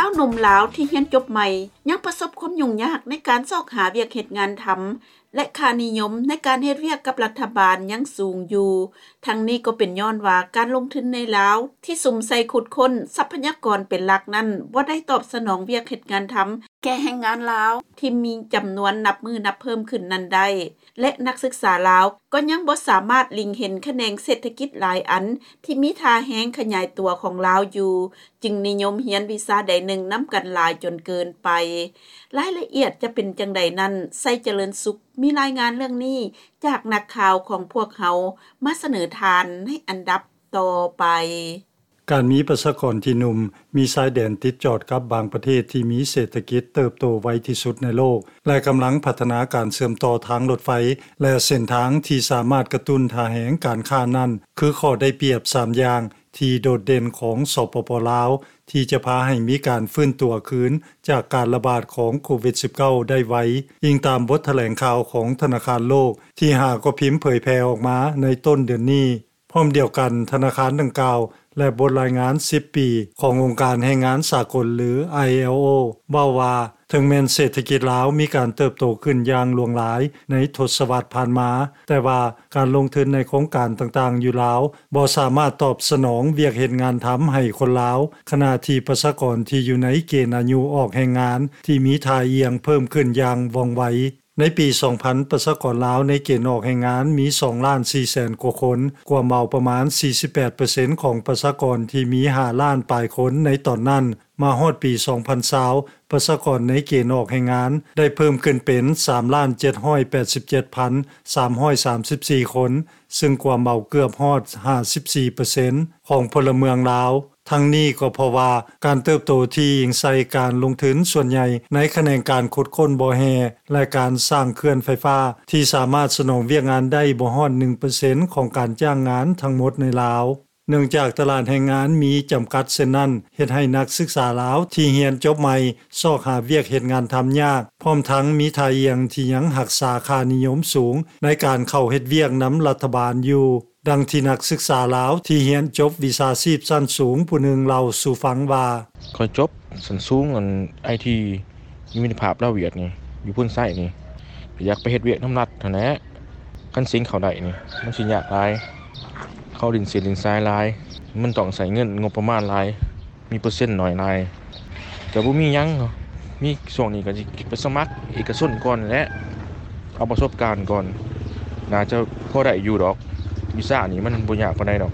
າວໜຸ່ມລາວທີ່ຮຽນຈົບໃໝ່ ຍັງປະສົບຄວາມຫຍຸ້ງຍາກໃນການຊອກຫາວຽກເຮັດງານທຳ ແລະ ຄ່ານິຍົມໃນການເຮັດວຽກກັບລັດຖະບານຍັງສູງຢູ່. ທັງນີ້ກໍເປັນຍ້ອນວ່າການລົງທຶນໃນລາວທີ່ສຸມໃສ່ຂຸດຄົ້ນຊັບພະຍາກອນເປັນຫຼັກນັ້ນ ບໍ່ໄດ້ຕອບສະໜອງວຽກເຮັດງານທຳແກ່ແຮງງານລາວທີ່ມີຈຳນວນນັບມື້ນັບເພີ່ມຂຶ້ນນັ້ນໄດ້ ແລະ ນັກສຶກສາລາວກໍຍັງບໍ່ສາມາດເລັງເຫັນຂະແໜງເສດຖະກິດຫຼາຍອັນທີ່ມີທ່າແຮງຂະຫຍາຍຕົວຂອງລາວຢູ່ ຈຶ່ງນິຍົມຮຽນວິຊາໃດໜຶ່ງນຳກັນຫຼາຍຈົນເກີນໄປ. ລາຍລະອຽດຈະເປັນຈັ່ງໃດນັ້ນ ໄຊຈະເລີນສຸກ ມີລາຍງານເລື່ອງນີ້ຈາກນັກຂ່າວຂອງພວກເຮົາມາສະເໜີທ່ານໃນອັນດັບຕໍ່ໄປ. ການມີປະຊາກອນທີ່ໜຸ່ມ ມີຊາຍແດນຕິດຈອດກັບບາງປະເທດທີ່ມີເສດຖະກິດເຕີບໂຕໄວທີ່ສຸດໃນໂລກ ແລະ ກຳລັງພັດທະນາການເຊື່ອມຕໍ່ທາງລົດໄຟ ແລະ ເສັ້ນທາງທີ່ສາມາດກະຕຸ້ນທ່າແຮງການຄ້ານັ້ນ ຄືຂໍ້ໄດ້ປຽບສາມຢ່າງ ທີ່ໂດດເດັ່ນຂອງ ສປປ ລາວ ທີ່ຈະພາໃຫ້ມີການຟື້ນຕົວຄືນຈາກການລະບາດຂອງໂຄວິດ-19 ໄດ້ໄວ, ອີງຕາມບົດຖະແຫຼງຂ່າວຂອງທະນາຄານໂລກ ທີ່ຫາກໍພິມເຜີຍແຜ່ອອກມາໃນຕົ້ນເດືອນນີ້. ພ້ອມດຽວກັນ, ທະນາຄານດັ່ງກ່າວ ແລະ ບົດລາຍງານສິບປີຂອງອົງການແຮງງານສາກົນ ຫຼື ILO ເວົ້າວ່າ ເຖິງແມ່ນເສດຖະກິດລາວມີການເຕີບໂຕຂຶ້ນຢ່າງຫຼວງຫຼາຍໃນທົດສະວັດຜ່ານມາ, ແຕ່ວ່າການລົງທຶນໃນໂຄງການຕ່າງໆຢູ່ລາວ ບໍ່ສາມາດຕອບສະໜອງວຽກເຮັດງານທຳໃຫ້ຄົນລາວ, ຂະນະທີ່ປະຊາກອນທີ່ຢູ່ໃນເກນອາຍຸອອກແຮງງານທີ່ມີທ່າອ່ຽງເພີ່ມຂຶ້ນຢ່າງວ່ອງໄວ. ໃນປີສອງພັນ ປະຊາກອນລາວໃນເກນອອກແຮງງານມີສອງລ້ານສີ່ແສນກວ່າຄົນ, ກວມເອົາປະມານສີ່ສິບແປດເປີເຊັນຂອງປະຊາກອນທີ່ມີຫ້າລ້ານປາຍຄົນໃນຕອນນັ້ນ. ມາຮອດປີສອງພັນຊາວ ປະຊາກອນໃນເກນອອກແຮງງານໄດ້ເພີ່ມຂຶ້ນເປັນສາມລ້ານເຈັດຮ້ອຍແປດສິບເຈັດພັນສາມຮ້ອຍສາມສິບສີ່ຄົນ, ຊຶ່ງກວມເອົາເກືອບຮອດຫ້າສິບສີ່ເປີເຊັນຂອງພົນລະເມືອງລາວ. ທັງນີ້ກໍເພາະວ່າການເຕີບໂຕທີ່ອີງໃສ່ການລົງທຶນສ່ວນໃຫຍ່ໃນຂະແໜງການຂຸດຄົ້ນບໍ່ແຮ່ ແລະ ການສ້າງເຂື່ອນໄຟຟ້າ ທີ່ສາມາດສະໜອງວຽກງານໄດ້ບໍ່ຮອດໜຶ່ງເປີເຊັນຂອງການຈ້າງງານທັງໝົດໃນລາວ. ເນື່ອງຈາກຕະຫຼາດແຮງງານມີຈຳກັດເຊັ່ນນັ້ນ, ເຮັດໃຫ້ນັກສຶກສາລາວທີ່ຮຽນຈົບໃໝ່ຊອກຫາວຽກເຮັດງານທຳຍາກ, ພ້ອມທັງມີທ່າອ່ຽງທີ່ຍັງຮັກສາຄ່ານິຍົມສູງໃນການເຂົ້າເຮັດວຽກນຳລັດຖະບານຢູ່. ດັ່ງທີ່ນັກສຶກສາລາວທີ່ຮຽນຈົບວິຊາຊີບຊັ້ນສູງຜູ້ໜຶ່ງເລົ່າສູ່ຟັງວ່າ, ຂ້ອຍຈົບຊັ້ນສູງອັນໄອທີ ຢູ່ມິດຕະພາບລາວຫວຽດນີ້ ຢູ່ໂພນໄຊນີ້ ກໍຢາກໄປເຮັດວຽກນຳລັດຫັ້ນແຫຼະ. ຄັນເສັງເຂົ້າໄດ້ນີ້ ມັນຊິຍາກຫຼາຍ, ເຂົາຫຼິ້ນເສັ້ນຫຼິ້ນສາຍຫຼາຍ, ມັນຕ້ອງໃຊ້ເງິນງົບປະມານຫຼາຍ, ມີເປີເຊັນໜ້ອຍຫຼາຍ. ກໍບໍ່ມີຫຍັງ, ມີຊ່ວງນີ້ກໍຊິໄປສະໝັກເອກະຊົນກ່ອນແຫຼະ, ເອົາປະສົບການກ່ອນ, ໜ້າຈະພໍໄດ້ຢູ່ດອກ. ວິຊານີ້ມັນບໍ່ຍາກປານໃດດອກ,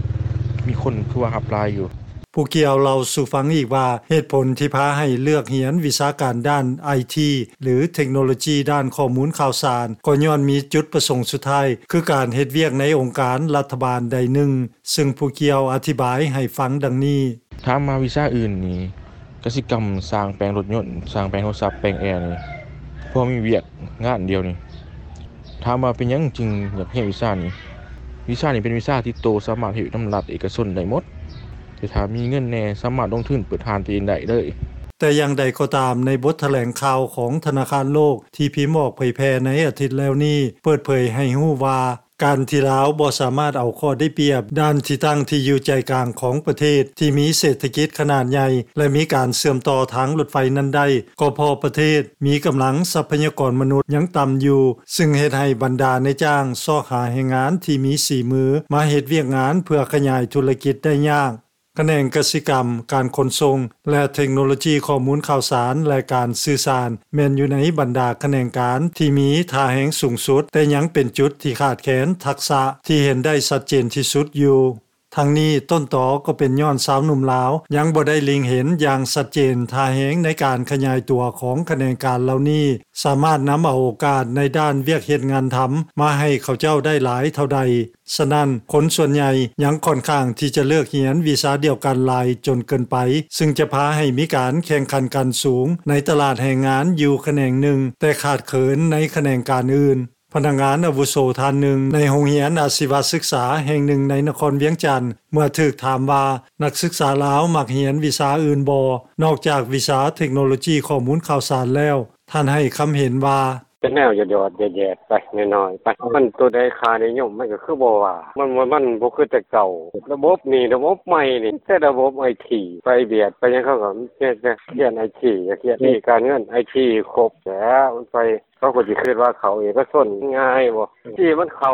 ມີຄົນຄືວ່າຮັບຫຼາຍຢູ່. ຜູ້ກ່ຽວເລົ່າສູ່ຟັງອີກວ່າ ເຫດຜົນທີ່ພາໃຫ້ເລືອກຮຽນວິຊາການດ້ານໄອທີ ຫຼື ເທັກໂນໂລຈີດ້ານຂໍ້ມູນຂ່າວສານ ກໍຍ້ອນມີຈຸດປະສົງສຸດທ້າຍ ຄືການເຮັດວຽກໃນອົງການລັດຖະບານໃດໜຶ່ງ, ຊຶ່ງຜູ້ກ່ຽວອະທິບາຍໃຫ້ຟັງດັ່ງນີ້. ຖາມມາວິຊາອື່ນນີ້ ກະສິກຳ, ຊ່າງແປງລົດຍົນ, ຊ່າງແປງໂທລະສັບ, ແປງແອນີ້ ພໍມີວຽກງານດຽວນີ້. ຖາມວ່າເປັນຫຍັງຈຶ່ງຢາກຮຽນວິຊານີ້? ວິຊານີ້ເປັນວິຊາຕິດໂຕ, ສາມາດເຮັດວຽກນຳລັດເອກະຊົນໄດ້ໝົດ, ແຕ່ຖ້າມີເງິນແດ່ ສາມາດລົງທຶນເປີດຮ້ານຕົວເອງໄດ້ເລີຍ. ແຕ່ຢ່າງໃດກໍຕາມ, ໃນບົດຖະແຫຼງຂ່າວຂອງທະນາຄານໂລກທີ່ພິມອອກເຜີຍແຜ່ໃນອາທິດແລ້ວນີ້ ເປີດເຜີຍໃຫ້ຮູ້ວ່າ ການທີ່ລາວບໍ່ສາມາດເອົາຂໍ້ໄດ້ປຽບດ້ານທີ່ຕັ້ງທີ່ຢູ່ໃຈກາງຂອງປະເທດທີ່ມີເສດຖະກິດຂະໜາດໃຫຍ່ ແລະ ມີການເຊື່ອມຕໍ່ທາງລົດໄຟນັ້ນໄດ້ ກໍເພາະປະເທດມີກຳລັງຊັບພະຍາກອນມະນຸດຍັງຕ່ຳຢູ່, ຊຶ່ງເຮັດໃຫ້ບັນດານາຍຈ້າງຊອກຫາແຮງງານທີ່ມີສີມືມາເຮັດວຽກງານເພື່ອຂະຫຍາຍທຸລະກິດໄດ້ຍາກ. ຂະແໜງກະສິກຳ, ການຂົນສົ່ງ ແລະ ເທັກໂນໂລຈີຂໍ້ມູນຂ່າວສານ ແລະ ການສື່ສານ ແມ່ນຢູ່ໃນບັນດາຂະແໜງການທີ່ມີທ່າແຮງສູງສຸດ, ແຕ່ຍັງເປັນຈຸດທີ່ຂາດແຄນທັກສະທີ່ເຫັນໄດ້ຊັດເຈນທີ່ສຸດຢູ່. ທັງນີ້, ຕົ້ນຕໍກໍເປັນຍ້ອນຊາວໜຸ່ມລາວຍັງບໍ່ໄດ້ເລັງເຫັນຢ່າງຊັດເຈນທ່າແຮງໃນການຂະຫຍາຍຕົວຂອງຂະແໜງການເຫຼົ່ານີ້ ສາມາດນຳເອົາໂອກາດໃນດ້ານວຽກເຮັດງານທຳມາໃຫ້ເຂົາເຈົ້າໄດ້ຫຼາຍເທົ່າໃດ. ສະນັ້ນ, ຄົນສ່ວນໃຫຍ່ຍັງຂ້ອນຂ້າງທີ່ຈະເລືອກຮຽນວິຊາດຽວກັນຫຼາຍຈົນເກີນໄປ, ຊຶ່ງຈະພາໃຫ້ມີການແຂ່ງຂັນກັນສູງໃນຕະຫຼາດແຮງງານຢູ່ຂະແໜງໜຶ່ງ, ແຕ່ຂາດເຂີນໃນຂະແໜງການອື່ນ. ພະນັກງານອາວຸໂສທ່ານໜຶ່ງໃນໂຮງຮຽນອາຊີວະສຶກສາແຫ່ງໜຶ່ງໃນນະຄອນວຽງຈັນ ເມື່ອຖືກຖາມວ່າ ນັກສຶກສາລາວມັກຮຽນວິຊາອື່ນບໍ່ ນອກຈາກວິຊາເທັກໂນໂລຈີຂໍ້ມູນຂ່າວສານແລ້ວ? ທ່ານໃຫ້ຄຳເຫັນວ່າ, ເປັນແນວຢອດໆແຢດໆໄປ ນ້ອຍໆໄປ ມັນໂຕໃດຄ່ານິຍົມ ມັນກໍຄືບໍ່ວ່າ ມັນ ມັນບໍ່ຄືແຕ່ເກົ່າ. ລະບົບນີ້ ລະບົບໃໝ່ນີ້ ແຕ່ລະບົບໄອທີ ໄປບຽດໄປຫຍັງ ເຂົາກໍມີແຕ່ຂຽນໄອທີ ຂຽນທີ່ການເງິນ ໄອທີຄົບແລ້ວ ມັນໄປ ເຂົາກໍຊິຄິດວ່າເຂົ້າເອກະຊົນງ່າຍບໍ່ ທີ່ມັນເຂົ້າ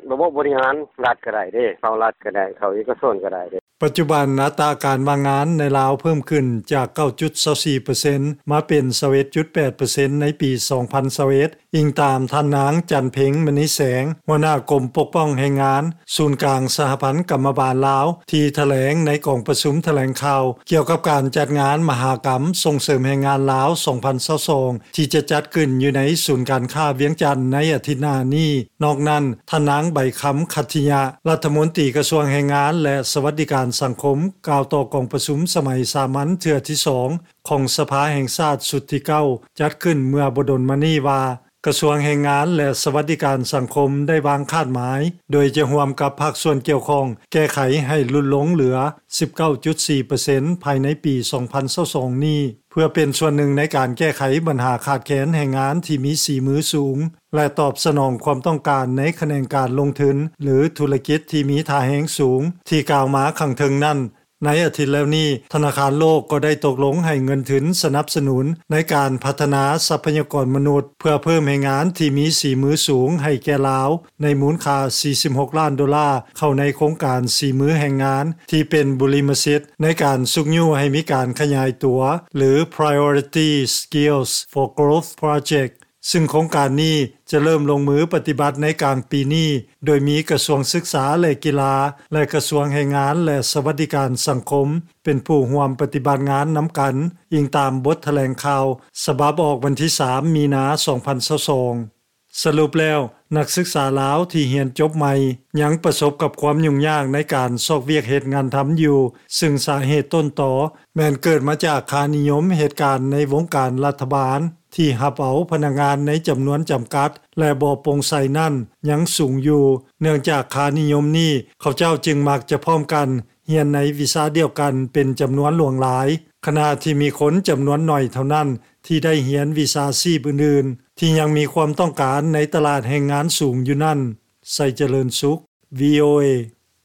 ລະບົບບໍລິຫານລັດກໍໄດ້ເດ້ ເຂົ້າລັດກໍໄດ້ ເຂົ້າເອກະຊົນກໍໄດ້ເດ້. ປັດຈຸບັນ ອັດຕາການວ່າງງານໃນລາວເພີ່ມຂຶ້ນຈາກ ເກົ້າຈຸດຊາວສີ່ເປີເຊັນ ມາເປັນ ຊາວເອັດຈຸດແປດເປີເຊັນ ໃນປີ ສອງພັນຊາວເອັດ ອີງຕາມທ່ານນາງ ຈັນເພັງ ມະນີແສງ ຫົວໜ້າກົມປົກປ້ອງແຮງງານ ສູນກາງສະຫະພັນກຳມະບານລາວ ທີ່ຖະແຫຼງໃນກອງປະຊຸມຖະແຫຼງຂ່າວ ກ່ຽວກັບການຈັດງານມະຫະກຳສົ່ງເສີມແຮງງານລາວ ສອງພັນຊາວສອງ ທີ່ຈະຈັດຂຶ້ນຢູ່ໃນສູນການຄ້າວຽງຈັນໃນອາທິດໜ້ານີ້. ນອກນັ້ນ ທ່ານນາງ ໃບຄຳ ຂັດທິຍະ ລັດຖະມົນຕີກະຊວງແຮງງານ ແລະ ສະຫວັດດີການສັງຄົມ ກ່າວຕໍ່ກອງປະຊຸມສະໄໝສາມັນເທື່ອທີສອງ ຂອງສະພາແຫ່ງຊາດຊຸດທີເກົ້າ ຈັດຂຶ້ນເມື່ອບໍ່ດົນມານີ້ວ່າ ກະຊວງແຮງງານ ແລະ ສະຫວັດດີການສັງຄົມ ໄດ້ວາງຄາດໝາຍ ໂດຍຈະຮ່ວມກັບພາກສ່ວນກ່ຽວຂ້ອງ ແກ້ໄຂໃຫ້ຫຼຸດລົງເຫຼືອ ສິບເກົ້າຈຸດສີ່ເປີເຊັນ ພາຍໃນປີ ສອງພັນຊາວສອງນີ້ ເພື່ອເປັນສ່ວນໜຶ່ງໃນການແກ້ໄຂບັນຫາຂາດແຄນແຮງງານທີ່ມີສີມືສູງ ແລະ ຕອບສະໜອງຄວາມຕ້ອງການໃນຂະແໜງການລົງທຶນ ຫຼື ທຸລະກິດທີ່ມີທ່າແຮງສູງ ທີ່ກ່າວມາຂ້າງເທິງນັ້ນ. ໃນອາທິດແລ້ວນີ້ ທະນາຄານໂລກກໍໄດ້ຕົກລົງໃຫ້ເງິນທຶນສະໜັບສະໜູນໃນການພັດທະນາຊັບພະຍາກອນມະນຸດ ເພື່ອເພີ່ມແຮງງານທີ່ມີສີມືສູງໃຫ້ແກ່ລາວ ໃນມູນຄ່າ ສີ່ສິບຫົກລ້ານໂດລາ ເຂົ້າໃນໂຄງການສີມືແຮງງານ ທີ່ເປັນບຸລິມະສິດໃນການຊຸກຍູ້ໃຫ້ມີການຂະຫຍາຍຕົວ ຫຼື Priority Skills for Growth Project ຊຶ່ງໂຄງການນີ້ຈະເລີ່ມລົງມືປະຕິບັດໃນກາງປີນີ້ ໂດຍມີກະຊວງສຶກສາ ແລະ ກິລາ ແລະ ກະຊວງແຮງງານ ແລະ ສະຫວັດດີການສັງຄົມ ເປັນຜູ້ຮ່ວມປະຕິບັດງານນຳກັນ, ອີງຕາມບົດຖະແຫຼງຂ່າວສະບັບອອກວັນທີສາມ ມີນາ ສອງພັນຊາວສອງ. ສະຫຼຸບແລ້ວ, ນັກສຶກສາລາວທີ່ຮຽນຈົບໃໝ່ ຍັງປະສົບກັບຄວາມຫຍຸ້ງຍາກໃນການຊອກວຽກເຮັດງານທຳຢູ່, ຊຶ່ງສາເຫດຕົ້ນຕໍແມ່ນເກີດມາຈາກຄ່ານິຍົມເຫດການໃນວົງການລັດຖະບານ ທີ່ຮັບເອົາພະນັກງານໃນຈຳນວນຈຳກັດ ແລະ ບໍ່ໂປ່ງໃສນັ້ນຍັງສູງຢູ່. ເນື່ອງຈາກຄ່ານິຍົມນີ້ ເຂົາເຈົ້າຈຶ່ງມັກຈະພ້ອມກັນຮຽນໃນວິຊາດຽວກັນເປັນຈຳນວນຫຼວງຫຼາຍ, ຂະນະທີ່ມີຄົນຈຳນວນໜ້ອຍເທົ່ານັ້ນທີ່ໄດ້ຮຽນວິຊາຊີບອື່ນໆ ທີ່ຍັງມີຄວາມຕ້ອງການໃນຕະຫຼາດແຮງງານສູງຢູ່ນັ້ນ. ໄຊຈະເລີນສຸກ ວີໂອເອ.